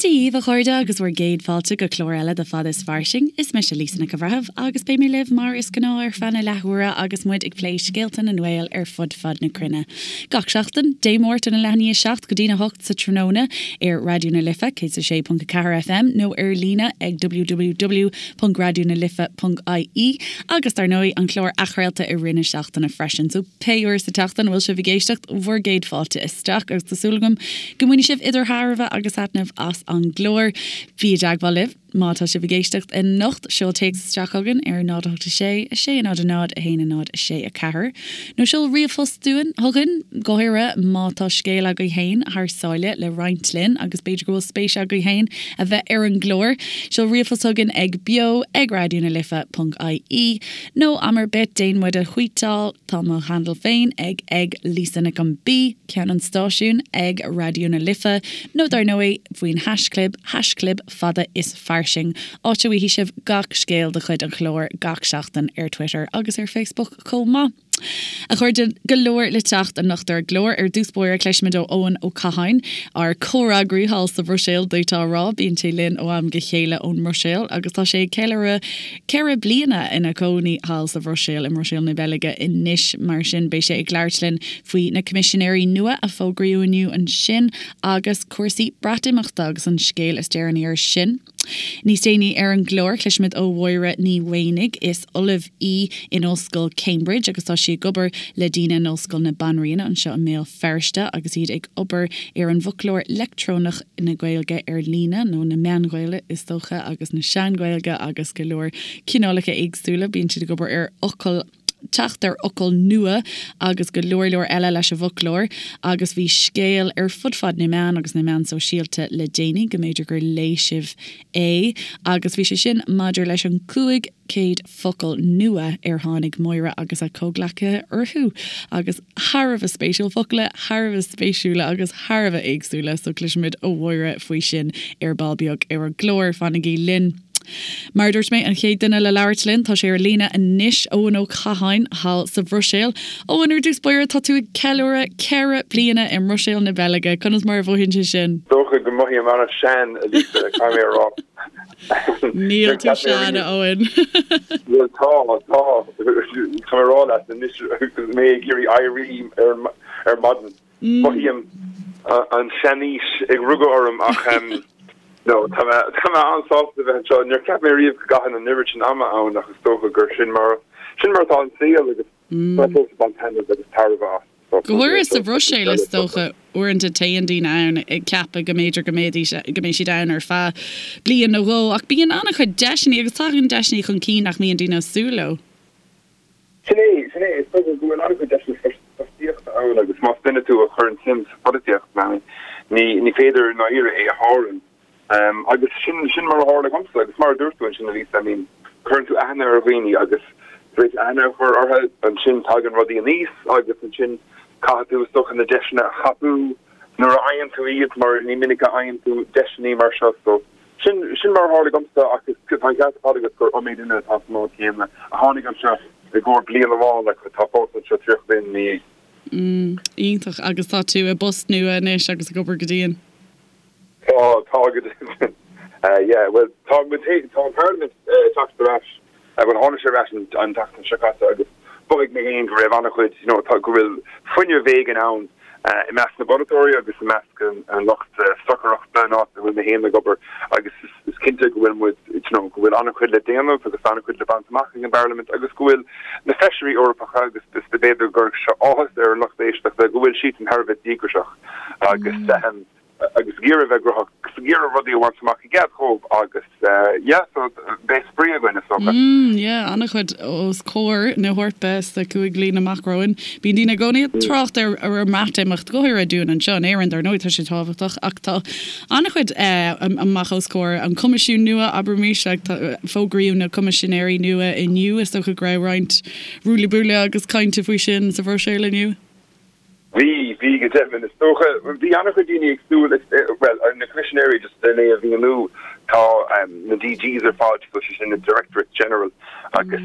Dia dhaoibh a chairde agus bhur gcéad fáilte go clár eile de Fada is Fairsing. Is mise Lisa Nic an Bhreithimh agus beidh mé libh mar is gnáth ar feadh na leathuaire agus muid ag plé scéalta na nGael ar fud fad na cruinne. Gach seachtain, Dé Máirt óna leath i ndiaidh 7 go dtína 8 sa tráthnóna ar Raidió na Life 106.4 FM nó ar líne ag www.raidionalife.ie agus dar ndóigh an clár athchraolta i rith na seachtaine freisin. So pé uair sa tseachtain a bhfuil sibh ag éisteacht, bhur gcéad fáilte isteach agus tá súil agam go mbainfidh sibh idir thairbhe agus thaitneamh as an gclár. Bí i dteagmháil libh má tá sibh ag éisteacht anocht, seol téacs isteach chugainn ar 0 8 6 6 0 0 1 0 6 4 nó seol ríomhphost dúinn, chugainn, go háirithe má tá scéal agaibh féin thar sáile le roinnt linn agus b'fhéidir go bhfuil spéis agaibh féin a bheith ar an gclár. Seol ríomhphost chugainn ag beo ag raidionalife.ie nó am ar bith déan muid a thvuíteáil, tá mo handle féin ag ag Lisa Nic an B, ceann an stáisiúin ag Raidió na Life nó dar ndóigh faoin haischlib, haischlib fada is fairsing, áit a bhfaighidh sibh gach scéal de chuid an chláir gach seachtain ar Twitter agus ar Facebook chomh maith. A chairde, go leor le teacht anocht ar an gclár. Ar dtús báire cloisfimid ó Eoin Ó Catháin, ár comhfhreagraí thall sa Bhruiséil, d'fhéadfá a rá. Bíonn sé linn ó am go chéile ón mBruiséil agus tá sé ag ceiliúradh 4 bliana ina chónaí thall sa Bhruiséil, i mBruiséil na Beilge anois. Mar sin, beidh sé ag labhairt linn faoi na Coimisinéirí nua a fógraíodh inniu ansin agus cúrsaí Breatimeachta agus an scéal is deireanaí air sin. Níos déanaí ar an gclár, cloisfimid ó Mháire Ní Mhaonaigh. Is ollamh í in Ollscoil Cambridge agus tá sí ag obair le daoine in Ollscoil na Banríona anseo i mBéal Feirste agus iad ag obair ar an bhfoclóir leictreonach na Gaeilge ar líne, nó na Meán-Ghaeilge is dócha, agus na Sean-Ghaeilge agus go leor cineálacha éagsúla. Bíonn siad ag obair ar fhocail, teacht ar fhocail nua agus go leor leor eile leis an bhfoclóir. Agus bhí scéal ar fud fad na meán agus na meán sóisialta le déanaí, go mb'fhéidir gur léigh sibh é, agus bhí sé sin maidir leis an 500 focal nua ar tháinig Máire agus a comhghleacaithe orthu. Agus thar a bheith spéisiúil, focla thar a bheith spéisiúla agus thar a bheith éagsúla, so cloisfimid ó Mháire faoi sin ar ball beag ar an gclár. Fanaigí linn. Mar a dúirt mé, an chéad duine le labhairt linn, tá sé ar líne anois, Eoin Ó Catháin, thall sa Bhruiséil. Eoin, ar dtús báire, tá tú ag ceiliúradh 4 bliana i mBruiséil na Beilge. Conas mar a mhothaíonn sé sin? Dócha go mothaím an-sean, a Lisa, caithfidh mé a rá. Níl tú sean, a Eoin. Bhuel, tá, tá. Tá mé a rá leat anois, mé ag iarraidh éirí ar maidin. Mothaím an seanaois ag rugadh orm ach no, tá mé tá mé an-sásta a bheith anseo. Níor cheap mé riamh go gcaithfinn an oiread sin ama ann ach is dócha gur sin mar sin mar atá an saol agus tá mé fós ag baint taitneamh agus tairbhe as. Go háirithe sa Bhruiséil is dócha, uaireanta téann daoine ann ag ceapadh go mb'fhéidir go mbeidís go mbeidh siad ann ar feadh bliain nó dhó ach bíonn an-chuid deiseanna agus tagann deiseanna chun cinn nach mbíonn daoine ag súil leo. Sin é, sin é. Is dócha go bhfuil an-chuid deiseanna fostaíochta ann agus más duine tú a chuireann suim sa pholaitíocht, ní, ní féidir i ndáiríre é a shárú. Agus sin, sin mar a tharla dhomsa agus mar a dúirt tú ansin, a Lisa, I mean, cuireann tú aithne ar dhaoine agus tar éis aithne a chur orthu, ansin tagann rudaí aníos agus ansin caithfidh tú, is dócha, na deiseanna a thapú nuair a fhaigheann tú iad mar ní minic a fhaigheann tú deiseanna mar seo. So, Sin, sin mar a tharla dhomsa ach is, tá an ceart ar fad agat gur iomaí duine atá sa mbád céanna a tháinig anseo i gcomhair bliain amháin ach atá fós anseo 30 bliain ina dhiaidh. Mm, iontach. Agus tá tú i bpost nua anois agus ag obair go dian. Tá, tá go deimhin. Yeah, bhuel, tá muid, tá an Parlaimint ag teacht ar ais. Bhuel, tháinig sé ar ais an tseachtain seo caite agus mhothaigh mé féin go raibh an-chuid, you know, go bhfuil fuinneamh éigin ann i measc na bpolaiteoirí agus i measc an lucht stocaireachta an áit a bhfuil mé féin ag obair agus is cinnte go bhfuil muid, you know, go bhfuil an-chuid le déanamh agus an-chuid le baint amach ag an bParlaimint agus go bhfuil na feisirí Eorpacha agus b'fhéidir go gcuirfeadh seo áthas ar an lucht éisteachta go bhfuil siadsan thar a bheith díograiseach agus agus ag iarraidh a bheith gnóthach, agus ag iarraidh rudaí a bhaint amach i gcead dhóibh agus yeah so beidh spraoi againn is dócha. Mm yeah, an-chuid os comhair na hEorpa sna 5 bliana amach romhainn. Bíonn daoine i gcónaí ag trácht ar ar an mBreatimeacht, go háirithe dúinn anseo in Éirinn, dar ndóigh tá sé tábhachtach ach tá an-chuid amach os comhair an Coimisiún nua, abraimis, like tá fógraíodh na Coimisinéirí nua inniu, is dócha go raibh roinnt ruaille buaille agus cainte faoi sin sa Bhruiséil inniu. Bhí, bhí go deimhin. Is dócha, bhí an-chuid daoine ag súil, bhuel, na Coimisinéirí, just le é a mhíniú, tá na DGs ar fad, so sé sin na Directorates General, agus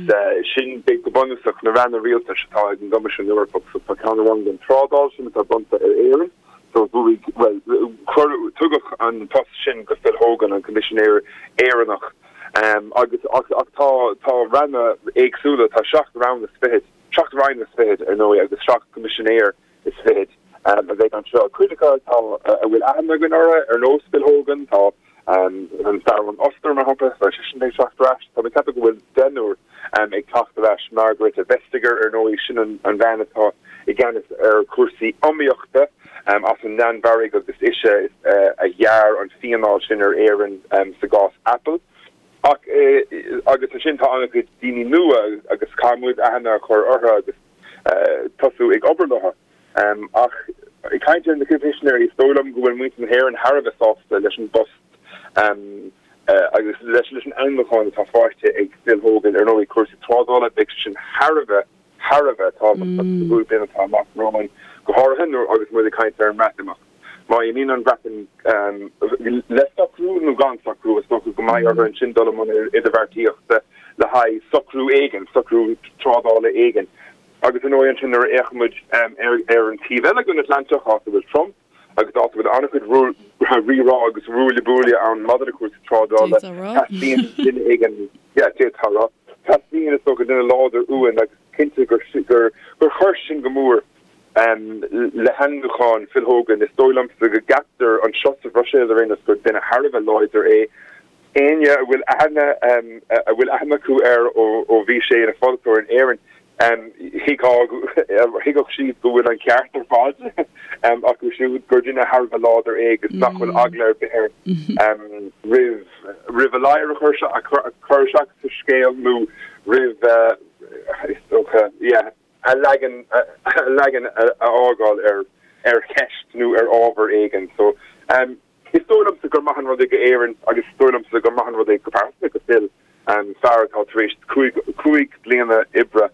sin go bunúsach na ranna rialtais atá ag an gCoimisiún Eorpach. So tá ceann amháin don trádáil, sin atá bronnta ar Éirinn. So bhuaigh, bhuel, cuireadh, tugadh an post sin go Phil Hogan, an Coimisinéir Éireannach. Agus, ach, ach tá, tá ranna éagsúla, tá 7 rann is fichead, 7 roinn is fichead, ar ndóigh, agus 7 gCoimisinéir is fichead a bheidh anseo. Cuid acu atá, a bhfuil aithne againn orthu, ar nós Phil Hogan, tá an fear ón Ostair, mar shampla, tá seisean ag teacht ar ais. Tá mé ag ceapadh go bhfuil deichniúr ag teacht ar ais. Margrethe Vestager, ar ndóigh, sin an bhean atá i gceannas ar chúrsaí iomaíochta as an Danmhairg agus ise a ghearr an fíneáil sin ar Éirinn sa gcás Apple. Ach, agus ansin tá an-chuid daoine nua agus caithfidh muid aithne a chur orthu agus tosú ag obair leo. Ach ag caint ar na Coimisinéirí, is dóigh liom go bhfuil muintir na hÉireann thar a bheith sásta leis an bpost agus leis an ainmniúchán atá faighte ag Phil Hogan. Ar ndóigh, cúrsaí trádála, beidh sé sin thar a bheith, thar a bheith tábhachtach sa gcúig bliana atá amach romhainn, go háirithe nuair agus muid ag caint ar an mBreatimeacht. Má imíonn an Bhreatain le socrú nó gan socrú, is dócha go mbeidh orthu ansin dul i mbun idirbheartaíochta le haghaidh socrú éigin, socrú trádála éigin. Agus ar ndóigh ansin nuair a fhéachann muid ar an taobh eile den Atlantach, áit a bhfuil Trump agus áit a bhfuil an-chuid rírá agus ruaille buaille ann maidir le cúrsaí trádála, teastaíonn duine éigin, yeah, d'fhéadfá a rá, teastaíonn is dócha duine láidir uainn agus cinnte gur chuir sin go mór le hainmniúchán Phil Hogan. Is dóigh liomsa go gceaptar anseo sa Bhruiséil ar aon nós gur duine thar a bheith láidir é. Éinne a bhfuil aithne a bhfuil aithne acu air ó bhí sé ina pholaiteoir in Éirinn, thuigfeadh siad go bhfuil an ceart ar fad acu siúd, gur duine thar a bheith láidir é agus nach bhfuil eagla ar bith air roimh roimh a ladhar a chur chur isteach sa scéal nó roimh, is dócha, yeah, a leagan a leagan a fhágáil ar ar cheist nó ar ábhar éigin. So. Is dóigh liomsa gur maith an rud é go Éirinn agus is dóigh liomsa gur maith an rud é go pearsanta go Phil, fear atá tar éis 5 bliana oibre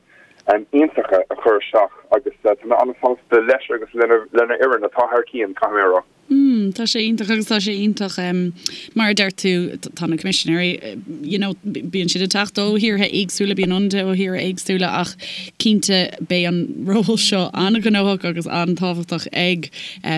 iontacha a chur isteach agus tá mé an-sásta leis agus lena fhoireann atá thar cionn, caithfidh mé a rá. Mm, tá sé iontach agus tá sé iontach mar a deir tú tá na coimisinéirí you know bíonn siad ag teacht ó thíortha éagsúla, bíonn ionadaithe ó thíortha éagsúla ach cinnte beidh an ról seo an-ghnóthach agus an-tábhachtach ag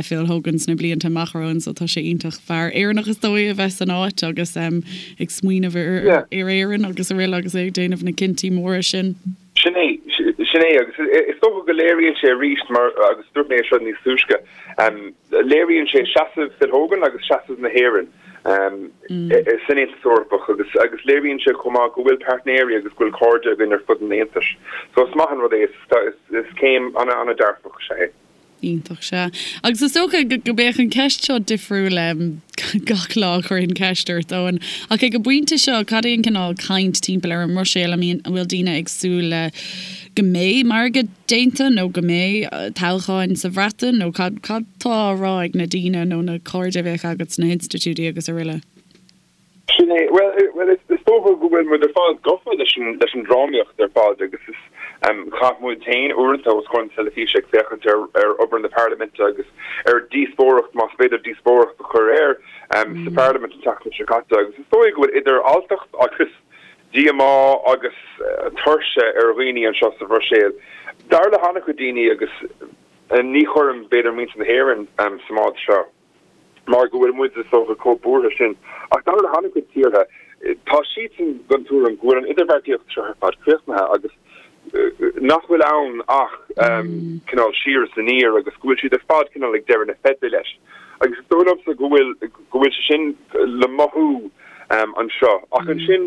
Phil Hogan sna blianta amach romhainn so tá sé iontach fear Éireannach is dóigh a bheith san áit agus ag smaoineamh ar Éirinn agus araile agus é ag déanamh na cinntí móra sin. Sin é, sin é agus is dócha go léiríonn sé arís mar agus dúirt mé é seo níos túisce, léiríonn sé seasamh Phil Hogan agus seasamh na hÉireann san Aontas Eorpach agus agus léiríonn sé chomh maith go bhfuil páirtnéirí agus go bhfuil cairde againn ar fud an Aontais. So is maith an rud é, is céim an-an-dearfach is ea é. Iontach, sea. Agus is dócha go mbeadh an ceist seo difriúil gach lá a chuirfinn ceist ort, Eoin. Ach ag an bpointe seo, cad é an cineál caint timpeall ar an mBruiséil? I mean, an bhfuil daoine ag súil le go mbeidh margadh déanta nó go mbeidh toghcháin sa Bhreatain nó cad cad tá á rá ag na daoine nó na cairde a bheadh agat sna hinstitiúidí agus araile? Sin é. Bhuel, is dócha go bhfuil muid ar fad gafa leis an leis an drámaíocht ar fad agus is chaith muid féin uaireanta os comhair na teilifíse ag féachaint ar ar obair na parlaiminte agus ar díospóireacht, más féidir díospóireacht a chur air, sa pharlaimint an tseachtain seo caite agus is dóigh go bhfuil idir alltacht agus díomá agus tuirse ar dhaoine anseo sa Bhruiséil. Dar le han-chuid daoine agus ní chuirim b'fhéidir muintir na hÉireann sa mbád seo. mar go bhfuil muid is dócha chomh buartha sin. Ach dar le han-chuid tíortha, tá siadsan den tuairim go bhfuil an idirbheartaíocht seo ar fad críochnaithe agus nach bhfuil ann ach cineál siar is aniar agus go bhfuil siad ar fad cineál ag deireadh na feide leis. Agus is dóigh liomsa go bhfuil go bhfuil sé sin le mothú anseo. Ach ansin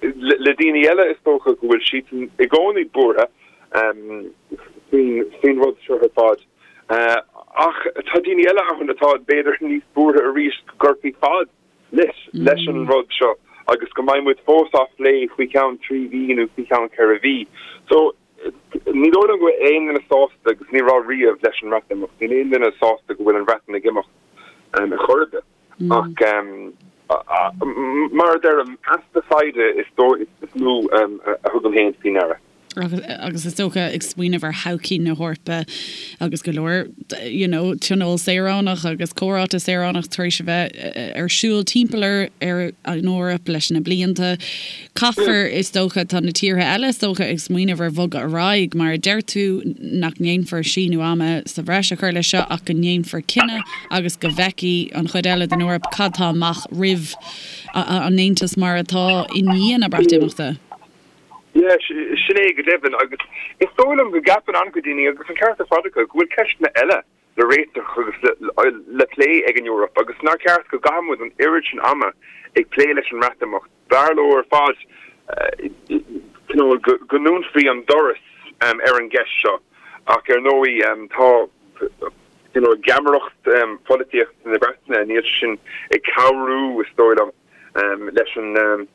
le daoine eile is dócha go bhfuil siadsan i gcónaí buartha faoin rud seo ar fad. Ach tá daoine eile ann atá b'fhéidir níos buartha arís go gcuirfí fad leis leis an rud seo agus go mbeidh muid fós á phlé faoi cheann 3 mhí nó faoi cheann 4 mhí. So ní dóigh liom go bhfuil aon duine sásta agus ní raibh riamh leis an mBreatimeacht. Níl aon duine sásta go bhfuil an Bhreatain ag imeacht ar chor ar bith. Ach mar a deirim, easpa foighde is dóigh is mó a thugaim féin faoi ndeara. Agus is dócha, ag smaoineamh ar thodhchaí na hEorpa agus go leor you know tionól saoránach agus comhráite saoránach tar éis a bheith ar siúl timpeall ar ar an Eoraip leis na blianta, caithfear, is dócha, tá na tíortha eile is dócha ag smaoineamh ar bhogadh ar aghaidh, mar a deir tú, nach ndéanfar síneadh ama sa bhreis a chur leis seo ach go ndéanfar cinneadh agus go bhfeicfidh an chuid eile den Eoraip cad tá amach roimh an Aontas mar atá i ndiaidh na Breatimeachta. Yeah, sin é go deimhin agus is dóigh liom go gceapann an-chuid daoine, agus an ceart ar fad acu, go bhfuil ceisteanna eile le réiteach agus le plé ag an Eoraip agus nár cheart go gcaithfidh muid an oiread sin ama ag plé leis an mBreatimeacht. B'fhearr leo ar fad cineál go ndúnfaí an doras ar an gceist seo ach ar ndóigh tá cineál geamaireacht pholaitíochta na Breataine, níl sé sin ag cabhrú is dóigh liom leis an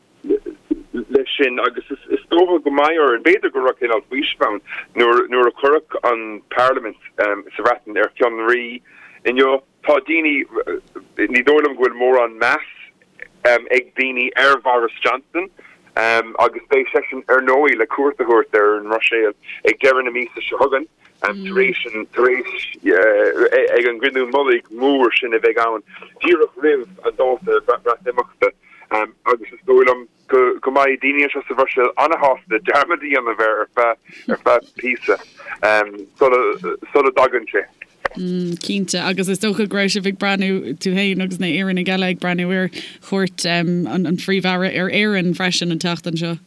leis sin agus is dócha go mbeidh orainn, b'fhéidir go raibh cineál faoiseamh ann nuair nuair a cuireadh an Parlaimint sa Bhreatain ar fionraí inniu. Tá daoine, ní dóigh liom go bhfuil mórán meas ag daoine ar Bhoris Johnson agus beidh seisean ar ndóigh le cuairt a thabhairt ar an mBruiséil ag deireadh na míosa seo chugainn tar éis an tar éis ag an gcruinniú mullaigh mór sin a bheidh ann díreach roimh an dáta Breatimeachta. Agus is dóigh liom go mbeidh daoine anseo sa Bhruiséil an-shásta dearmad a dhéanamh air ar feadh ar feadh píosa sula dtagann sé. Cinnte, agus is dócha go raibh sibh ag breathnú, tú féin agus na hÉireannaigh eile ag breathnú ar chuairt an Phríomh-Aire ar Éirinn freisin an tseachtain seo.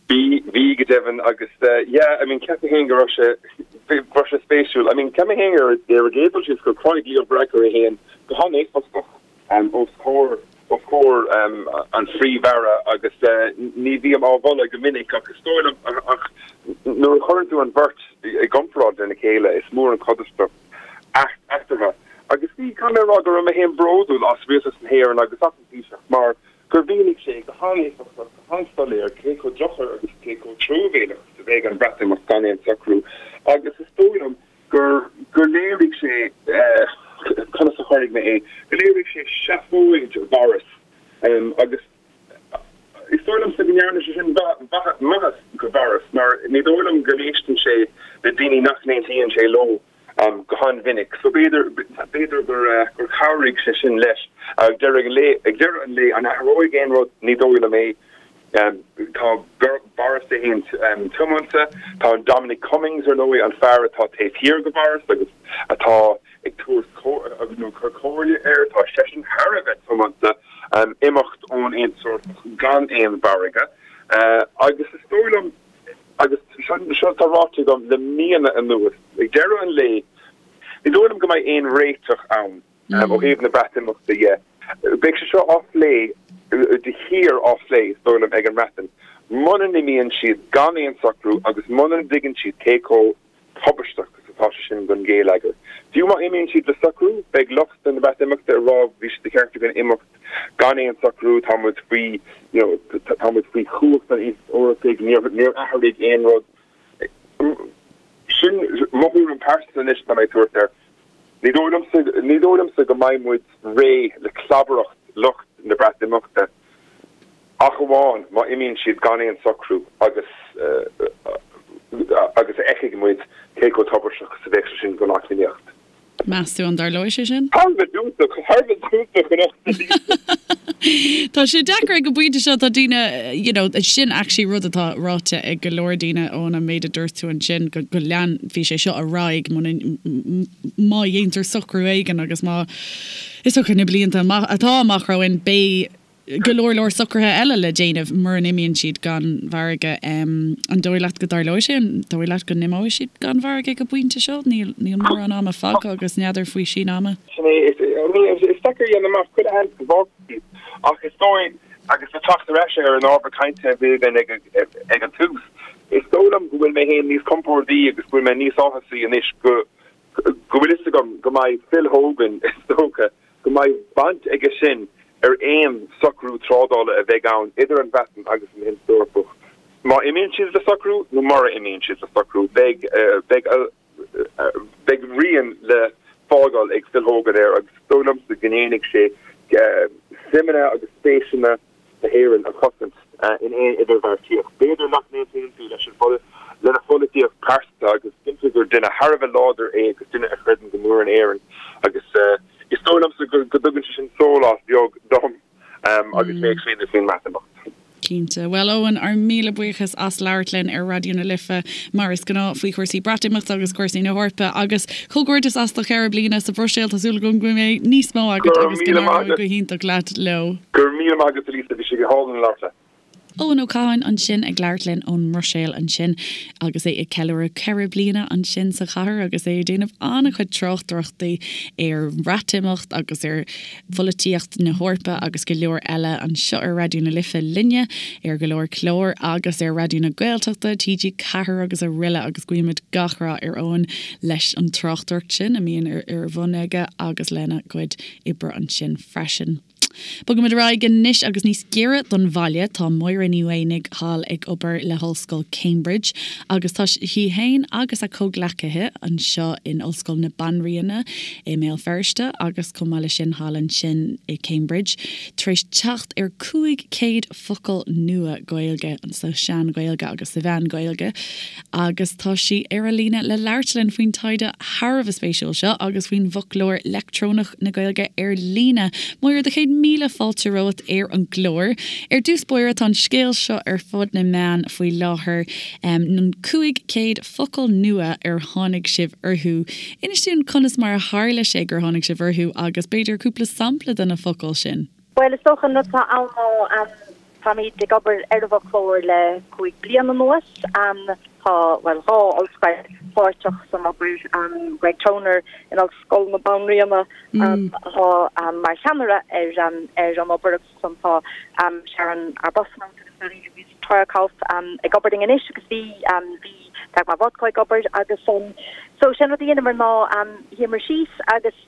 Bhí, bhí go deimhin agus yeah, I mean ceapaim féin go raibh sé, go raibh sé spéisiúil. I mean ceapaim féin ar ar an gcéad dul síos gur chruthaigh Leo Varadkar é féin go han-éifeachtach os comhair, os comhair an Phríomh-Aire agus ní bhím á mholadh go minic ach is dóigh liom ach nuair a chuireann tú an bheirt i gcomparáid lena chéile is mór an chodarsnacht eatarthu. Agus bhí, caithfidh mé a rá go raibh mé féin bródúil as Rialtas na hÉireann agus as an Taoiseach mar gur mhínigh sé go han-éifeachtach, go han-soiléir cé chomh drochach agus cé chomh truamhéalach is a bheidh an Bhreatimeacht gan aon socrú agus is dóigh liom gur gur léirigh sé, conas a chuirfidh mé é, go léirigh sé seafóid Bhoris agus is dóigh liomsa go ndearna sé sin maitheas go Boris mar ní dóigh liom go n-éisteann sé le daoine nach n-aontaíonn sé leo go han-mhinic. So b'fhéidir, b'fhéidir gur gur chabhraigh sé sin leis. Ag deireadh an lae, ag deireadh an lae, an athróidh aon rud? Ní dóigh liom é. Tá Boris é féin tiomanta. Tá Dominic Cummings, ar ndóigh, an fear atá taobh thiar de Boris agus atá ag tabhairt agus nó ag cur comhairle air, tá seisean thar a bheith tiomanta imeacht ón Aontas Eorpach gan aon mhargadh. Agus is dóigh liom, agus seo atá ráite agam le míonna anuas, ag deireadh an lae, ní dóigh liom go mbeidh aon réiteach ann. Ó thaobh na Breatimeachta dhe, beidh sé seo á phlé de shíor á phlé, is dóigh liom, ag an mBreatain. Muna n-imíonn siad gan aon socrú agus muna dtuigeann siad cé chomh tubaisteach is atá sé sin don gheilleagar. Fiú má imíonn siad le socrú, beidh lucht na Breatimeachta ag rá bhí sé de cheart againn imeacht gan aon socrú, tá muid faoi, you know, tá muid faoi chumhacht an Aontais Eorpaigh, níor, níor athraigh aon rud. Sin mo thuairim pearsanta anois atá mé ag tabhairt air. Ní dóigh liomsa, ní dóigh liomsa go mbeidh muid réidh le clabaireacht lucht na Breatimeachta ach amháin má imíonn siad gan aon socrú agus agus a fheicfidh muid cé chomh tubaisteach is a bheadh sé sin don eacnamaíocht. Meas tú an dtarlóidh sé sin? Thar a bheith fiúntach, thar a bheith fiúntach anocht Tá sé deacair ag an bpointe seo, tá daoine, you know, sin actually rud atá ráite ag go leor daoine ón méid a dúirt tú ansin, go, go leanfaidh sé seo ar aghaidh muna, má dhéantar socrú éigin agus má, is dócha na blianta amach, atá amach romhainn, beidh go leor leor socruithe eile le déanamh mura n-imíonn siad gan mhargadh. An dóigh leat go dtarlóidh sé? An dóigh leat go n-imeoidh siad gan mhargadh ag an bpointe seo? Níl, níl mórán ama fágtha agus n'fheadar faoi síneadh ama. Sin é, is, I mean, is deacair a dhéanamh amach, chuile sheans go bhfágfaidh siad ach is dóigh, agus le teacht ar ais ar an ábhar cainte a bhí againn ag, ag an tús, is dóigh liom go bhfuil mé féin níos compórdaí agus go bhfuil mé níos áthasaí anois go, go bhfuil fhios agam go mbeidh Phil Hogan, is dócha, go mbeidh baint aige sin ar aon socrú trádála a bheidh ann idir an Bhreatain agus an Aontas Eorpach. Má imíonn siad le socrú nó mura imíonn siad le socrú, beidh, beidh, beidh rian le fágáil ag Phil Hogan air agus is dóigh liomsa go ndéanfaidh sé suimeanna agus spéiseanna na hÉireann a chosaint in aon idirbheartaíocht. B'fhéidir nach n-aontaíonn tú leis an. lena pholaitíocht pearsanta agus cinnte gur duine thar a bheith láidir é agus duine a chreideann go mór in Éirinn agus is dóigh liomsa go dtugann sé sin sólás beag dom agus mé ag smaoineamh faoin mBreatimeacht. Cinnte. Bhuel, Eoin, ár míle buíochas as labhairt linn ar Raidió na Life, mar is gnáth, faoi chúrsaí Breatimeachta agus cúrsaí na hEorpa. Agus comhghairdeas as do cheithre bliana sa Bhruiséil. Tá súil agam go mbeidh níos mó agat agus go n-éireoidh go hiontach leat leo. Go raibh míle maith agat, a Lisa. Bhí sé go hálainn labhairt leat. Eoin Ó Catháin ansin ag labhairt linn ón mBruiséil ansin agus é ag ceiliúradh 4 bliana ansin sa chathair agus é ag déanamh an-chuid tráchtaireachtaí ar Bhreatimeacht agus ar pholaitíocht na hEorpa agus go leor eile anseo ar Raidió na Life linne ar go leor clár agus ar Raidió na Gaeltachta, TG4 agus aroile agus guímid gach rath ar Eoin leis an tráchtaireacht sin a mbíonn ar bun aige agus lena chuid oibre ansin freisin. Bogaimid ar aghaidh anois agus níos giorra don bhaile. Tá Máire Ní Mhaonaigh thall ag obair le hOllscoil Cambridge agus tá sí féin agus a comhghleacaithe anseo in Ollscoil na Banríona i mBéal Feirste agus chomh maith leis sin thall ansin i Cambridge tar éis teacht ar 500 focal nua Gaeilge sa Sean-Ghaeilge agus sa Mheán-Ghaeilge agus tá sí ar an líne le labhairt linn faoin taighde thar a bheith spéisiúil seo agus faoin bhfoclóir leictreonach na Gaeilge ar líne. Máire, do chéad míle fáilte romhat ar an gclár. Ar dtús báire, tá an scéal seo ar fud na meán faoi láthair, an 500 focal nua ar tháinig sibh orthu. Inis dúinn conas mar a tharla sé gur tháinig sibh orthu agus b'fhéidir cúpla sampla de na focail sin. Bhuel, is dócha an rud atá ann ná táimid ag obair ar an bhfoclóir le 5 bliana anuas. Tá, bhuel, 2 ollscoil páirteach san obair, Greg Toner in Ollscoil na Banríona atá mar cheannaire ar ar an obair agus ansan tá Sharon Arbuthnot agus Marie-Louise Theuerkauf ag obair linn anois agus bhí bhí Dagmar Wodko ag obair agus so sé an rud a dheineamar ná shuíomar síos agus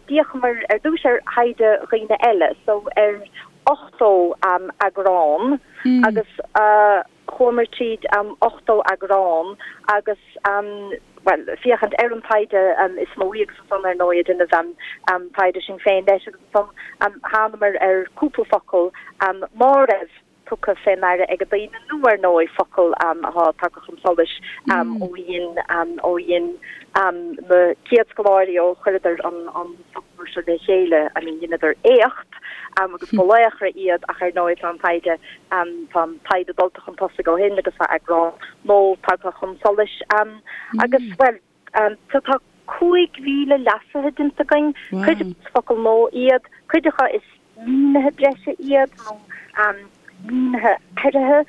D'fhéachamar ar dtús ar thaighde dhaoine eile, so ar 80 eagrán agus chuamar tríd 80 eagrán agus, bhuel, féachaint ar an taighde is mó agus ansan ar ndóigh ag déanamh taighde sinn féin leis agus ansan thánamar ar cúpla focal ná raibh tugtha fé ndeara ag daoine nó ar ndóigh focail atá tagtha chun solais ó dhein ó dhein na chéad scoláirí ó chuireadar an an foclóir seo le chéile I mean dheineadar éacht agus ba laochra iad ach ar ndóigh tá an taighde tá an taighde dulta chun tosaigh ó shin agus tá eagrán nua tagtha chun solais agus bhuel So tá 5,000 leasaithe déanta againn, cuid acu is focail nua iad, cuid acu is mínithe breise iad nó mínithe athraithe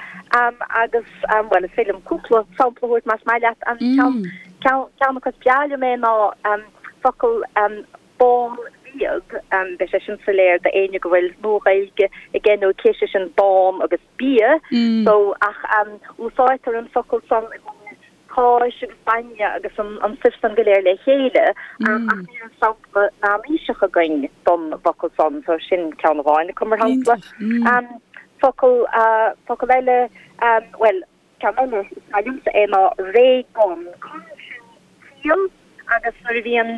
agus, bhuel, is féidir liom cúpla sampla a thabhairt más maith leat. An ceann, ceann acu is breá liom é ná focal bánbhiadh, beidh sé sin soiléir d'éinne go bhfuil Nua-Ghaeilge aige nó aici, sé sin bán agus bia, so ach úsáidtear an focal san i gcomhair cáis agus bainne agus an stuif san go léir le chéile, ach ní raibh sampla meánaoiseach againn don bhfocal san, so sin ceann amháin acu, mar shampla. Focal, focal eile, bhuel, ceann eile is maith liomsa é ná ré-gon. Con sin ciall agus nuair a bhíonn,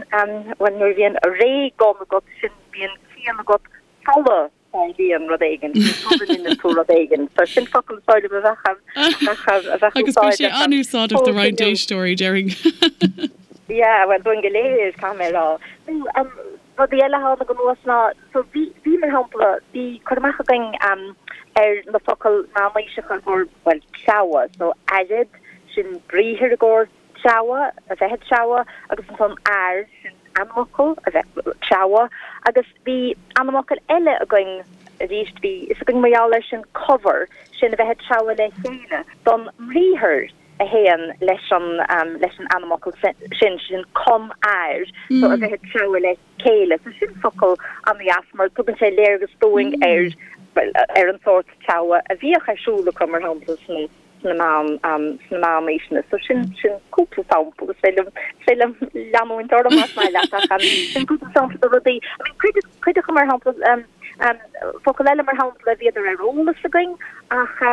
bhuel, nuair a bhíonn ré-gon agat, sin bíonn ciall agat sula dtarlaíonn rud éigin, sula ndeineann tú rud éigin. So sin focal is dóigh liom a bheadh, a bheadh, a bheadh Agus bhí sé úsáideach an-úsáideach do roinnt éisteoirí, déarfainn. Yeah, bhuel, dúinn go léir, caithfidh mé a rá. Nó, um, rudaí eile a tháinig anuas ná, so bhí, bhí mar shampla, bhí cur amach againn um, ar na focail meánaoiseacha i gcomhair, bhuel, treabhadh, so aired, sin briathar i gcomhair treabhadh, a bheith ag treabhadh, agus ansan air, sin ainmfhocal, a bheith ag treabhadh, agus bhí ainmfhocal eile againn arís, bhí fhios againn mar gheall air sin cobhar, sin a bheith ag treabhadh le chéile, don mbriathar a théann leis an, leis an ainmfhocal sin, sin com-air, so a bheith ag treabhadh le chéile. So sin focal an-dheas mar tugann sé léargas dúinn ar, bhuel, ar an sórt treabhadh a bhíodh ar siúl acu, mar shampla, sna. sna meán, sna meánaoiseanna. So sin, sin cúpla sampla. Is féidir liom, is féidir liom leanúint orm más maith leat ach sin cúpla sampla de rudaí. I mean cuid, cuid acu mar shampla, focal eile mar shampla bhíodar ar eolas againn ach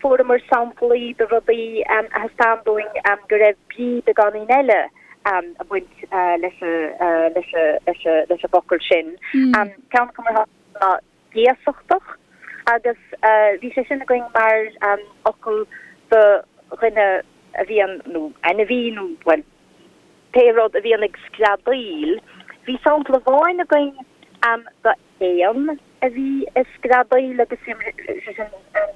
fuaireamar samplaí de rudaí a thaispeáin dúinn go raibh brí beagáinín eile ag baint leis an, leis an, leis an, leis an bhfocal sin. Ceann acu mar shampla ná géasachtach agus bhí sé sin againn mar fhocal do dhuine. a bhíonn, nó ainmhí nó, bhuel, pé rud a bhíonn ag screadaíl. Bhí sampla amháin againn d'éan a bhí ag screadaíl agus sé sin an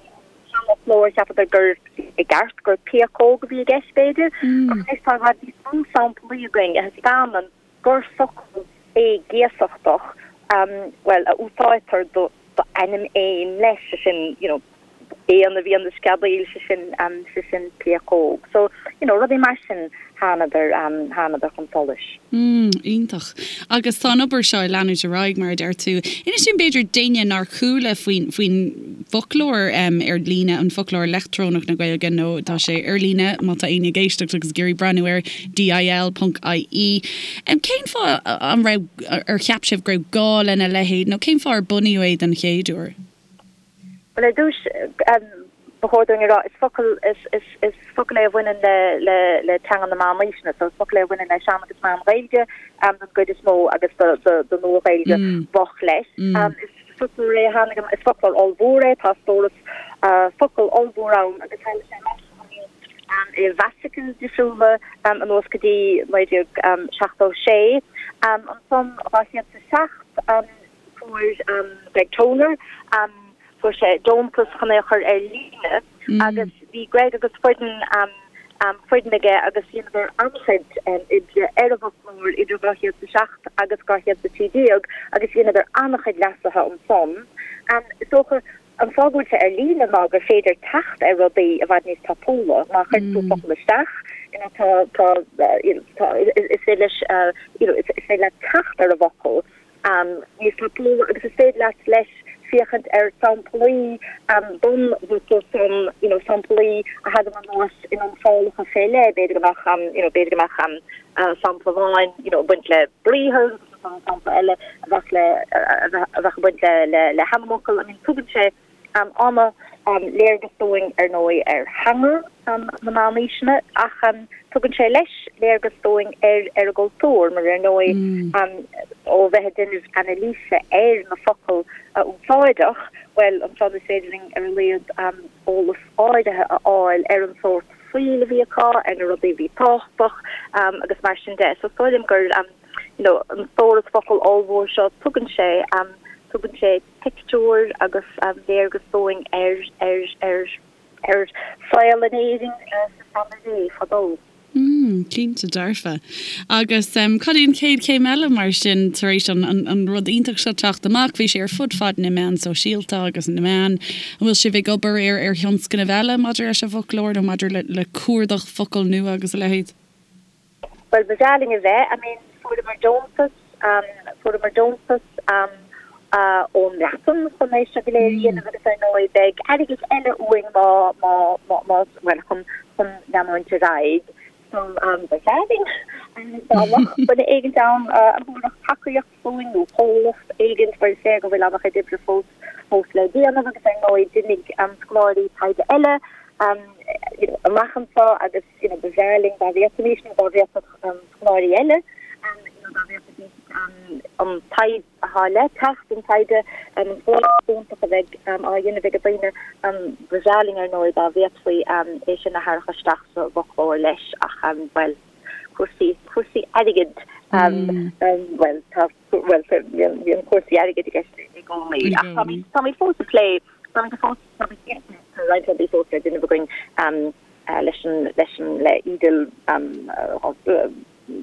seanfhoclóir, cheapadar gur i gceart gur péacóg a bhí i gceist b'fhéidir, ach anois tá i bhfad níos mó samplaí againn a thaispeánann gur focal é géasachtach, bhuel, a úsáidtear do d'ainm éin leis, sé sin, you know, éan a bhíonn ag screadaíl, sé sin, sé sin péacóg. So, you know, rudaí mar sin thánadar, thánadar chun solais. Mm, iontach. Agus tá an obair seo ag leanúint ar aghaidh, mar a deir tú. Inis dúinn b'fhéidir d'éinne nár chuala faoin, faoin bhfoclóir ar líne, an foclóir leictreonach na Gaeilge, nó tá sé ar líne má tá éinne ag éisteacht agus ag iarraidh breathnú air, dil ponc ie. Cén fáth an raibh, ar cheap sibh go raibh gá lena leithéid nó cén fáth ar bunaíodh é den chéad uair? Bhuel, ar dtús, ba chóir dúinn a rá, is focal, is, is focal é a bhaineann le, le, le teanga na meánaoiseanna, so is focal é a bhaineann le Sean agus Meán-Ghaeilge den gcuid is mó agus do, do, do Nua-Ghaeilge mhoch leis. Is foclóir é a tháinig, is foclóir ollmhór é, tá stóras focal ollmhór ann agus tharla sé amach i bhfasicil difriúla anuas go dtí 1976. Ansan 2007 fuair Greg Toner, fuair sé deontas chun é a chur ar líne agus bhí Greg agus foireann foireann aige agus dheineadar an-chuid oibre ar an bhfoclóir idir 2007 agus 2013 agus dheineadar an-chuid leasuithe ansan. Is dócha An fáth go bhfuil sé ar líne ná gur féidir teacht ar rudaí i bhfad níos tapúla. Má chuireann tú focal isteach, you know, tá, tá, you know, tá, is féidir leis, you know, is féidir leat teacht ar an bhfocal níos tapúla agus is féidir leat leis féachaint ar samplaí don bhfocal san, you know, samplaí a thagann anuas in iontrálacha fé leith, b'fhéidir go mbeadh, you know, b'fhéidir go mbeadh sampla amháin, you know, ag baint le briathar, sampla eile a bheadh le a bheadh ag baint le le hainmfhocal. I mean tugann sé an-léargas dúinn ar ndóigh ar theanga na meánaoiseanna ach tugann sé leis léargas dúinn ar ar an gcultúr mar ar ndóigh ó bheith ag déanamh anailíse ar na focail a úsáideadh, bhuel ansan is féidir linn ar a laghad eolas áirithe a fháil ar an sórt saoil a bhí acu, ar na rudaí a bhí tábhachtach agus mar sin de. So is dóigh liom gur you know, an stóras focal ollmhór seo, tugann sé, tugann sé pictiúr agus léargas dúinn ar, ar, ar, ar saol in Éirinn sa seanré fadó. Mm, cinnte dearfa. Agus cad é an chéad chéim eile mar sin tar éis an, an, an rud iontach seo teacht amach? Bhí sé ar fud fad na meán sóisialta agus na meán. An bhfuil sibh ag obair ar, ar thionscnaimh eile maidir leis an bhfoclóir nó maidir le, le cuardach focal nua agus a leithéid? Bhuel, ba bhreá linn a bheith. I mean, fuaireamar deontas, fuaireamar deontas ón mBreatain chun é seo go léir a dhéanamh agus ar ndóigh beidh airgead eile uainn má, má, má, má, bhuel, chun, chun leanúint ar aghaidh. So, ba bhreá linn dá mbeadh duine éigint ann a thabharfadh tacaíocht dúinn nó comhlacht éigint mar is léir go bhfuil an-chuid oibre fós, fós le déanamh agus ar ndóigh d'imigh scoláirí taighde eile you know, amach anseo agus you know, ba bhreá linn dá bhféadfaimís nó dá bhféadfadh scoláirí eile you know, dá bhféadfaidís an taighde atá le teacht, an taighde an scoláireacht iontach a bheidh á dhéanamh ag daoine, ba bhreá linn ar ndóigh dá bhféadfaí é sin a tharrac isteach sa bhfoclóir leis ach bhuel, cúrsaí, cúrsaí airgid, bhuel, tá, bhuel, bíonn cúrsaí airgid i gceist i gcónaí ach táimid, táimid fós ag plé, táimid fós, táimid, tá roinnt rudaí fós le déanamh againn leis an, leis an, le EDIL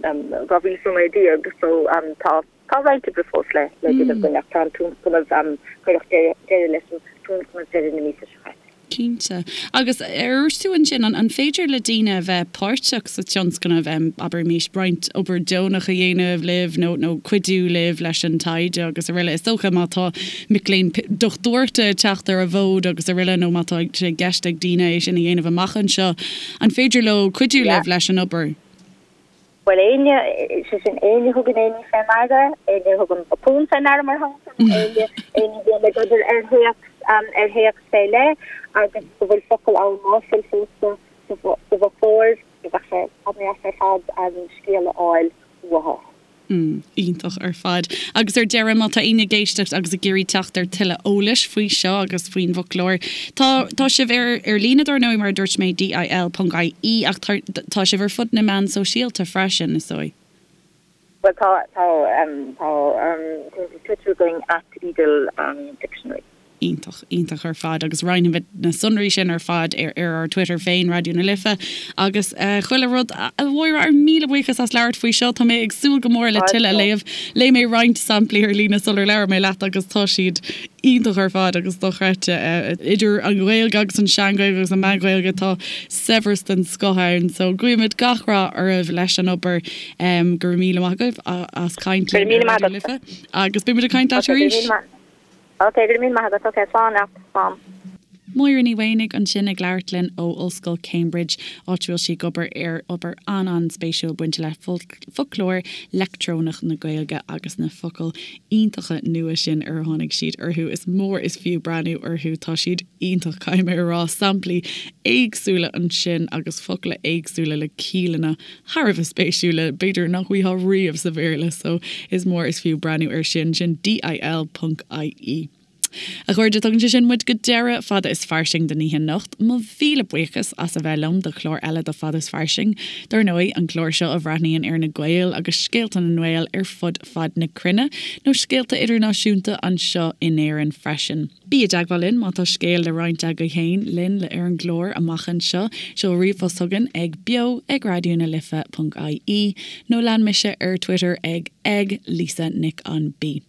2019 so tá, tá roinnt oibre fós le, le déanamh againn ach tá an tionscnamh, cuireadh deireadh leis an tionscnamh deireadh na míosa seo caite. Cinnte. Agus ar dhúirt tú ansin, an féidir le daoine a bheith páirteach sa tionscnamh, abraimis, roinnt obair deonach a dhéanamh libh nó nó cuidiú libh leis an taighde agus araile? Is dócha má tá mic léinn dochtúireachta ag teacht ar an bhfód agus araile nó má tá sé i gceist ag daoine é sin a dhéanamh amach anseo, an féidir leo cuidiú libh leis an obair? Bhuel, éinne, sé sin, éinne a thugann aon ní fé ndeara, éinne a thugann botún fé ndeara, mar shampla, nó éinne, éinne a bhíonn ag obair ar théacs, ar théacs fé leith agus go bhfuil focal ann ná fuil fós sa, sa bhfoclóir, bheadh sé an-deas ar fad scéal a fháil uathu. Mm, iontach ar fad. Agus ar deireadh, má tá éinne ag éisteacht agus ag iarraidh teacht ar tuilleadh eolais faoi seo agus faoin bhfoclóir, tá, tá sibh ar, ar líne dar ndóigh, mar a dúirt mé, DIL ponc IE, ach tá, tá sibh ar fud na meán sóisialta freisin, is dóigh. Bhuel, tá, tá, tá cuntas Twitter againn, at EDIL Dictionary. Iontach, iontach ar fad agus roinnfimid na sonraí sin ar fad ar ar ár Twitter féin, Raidió na Life agus chuile rud. A Mháire, ár míle buíochas as labhairt faoi seo. Tá mé ag súil go mór le tuilleadh a léamh. Léigh mé roinnt samplaí ar líne sular labhair mé leat agus tá siad iontach ar fad agus dochreidte. Idir an Ghaeilge agus an Sean-Ghaeilge agus an Meán-Ghaeilge tá saibhreas den scoth ann. So guímid gach rath oraibh leis an obair. Go raibh míle maith agaibh as caint linn ar Raidió na Life agus beimid ag caint leat arís. Ok, go raibh míle maith agat. Ok, slán leat. Slán. Máire Ní Mhaonaigh ansin ag labhairt linn ó Ollscoil Cambridge, áit a bhfuil sí ag obair ar obair an-an-spéisiúil bainte le foclóir leictreonach na Gaeilge agus na focail iontacha nua sin ar tháinig siad orthu. Is mór is fiú breathnú orthu, tá siad iontach, caithfidh mé a rá. Samplaí éagsúla ansin agus focla éagsúla le ciallanna thar a bheith spéisiúla, b'fhéidir nach bhfaighfeá riamh sa Bhéarla, so is mór is fiú breathnú air sin, sin DIL ponc IE. A chairde, tugann sé sin muid go deireadh Fada is Fairsing don oíche anocht. Mo mhíle buíochas as a bheith liom do chlár eile de Fada is Fairsing. Dar ndóigh, an clár seo a bhreathnaíonn ar na Gaeil agus scéalta na nGael ar fud fad na cruinne, nó scéalta idirnáisiúnta anseo in Éirinn freisin. Bí i dteagmháil linn má tá scéal le roinnt agaibh féin linn le ar an gclár amach anseo. Seol ríomhphost chugainn ag beo ag raidió na life ponc ie nó lean mise ar Twitter ag ag Lisa Nic an B.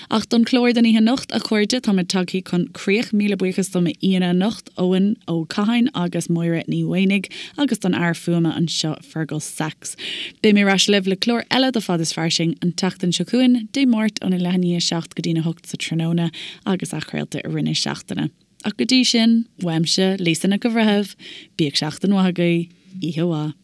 Ach don chlár don oíche anocht, a chairde, táimid tagthaí chun críoch. Míle buíochas do m'aíonna anocht, Eoin Ó Catháin agus Máire Ní Mhaonaigh agus don fhear fuaime anseo, Fergal Sachs. Beidh mé ar ais libh le clár eile de Fad is Fairsing an tseachtain seo chugainn, Dé Máirt óna leath i ndiaidh 7 go dtína 8 sa tráthnóna agus athchraolta i rith na seachtaine. Ach go dtí sin, uaimse, Lisa Nic an Bhreithimh, bíodh seachtain mhaith agaibh, oíche mhaith.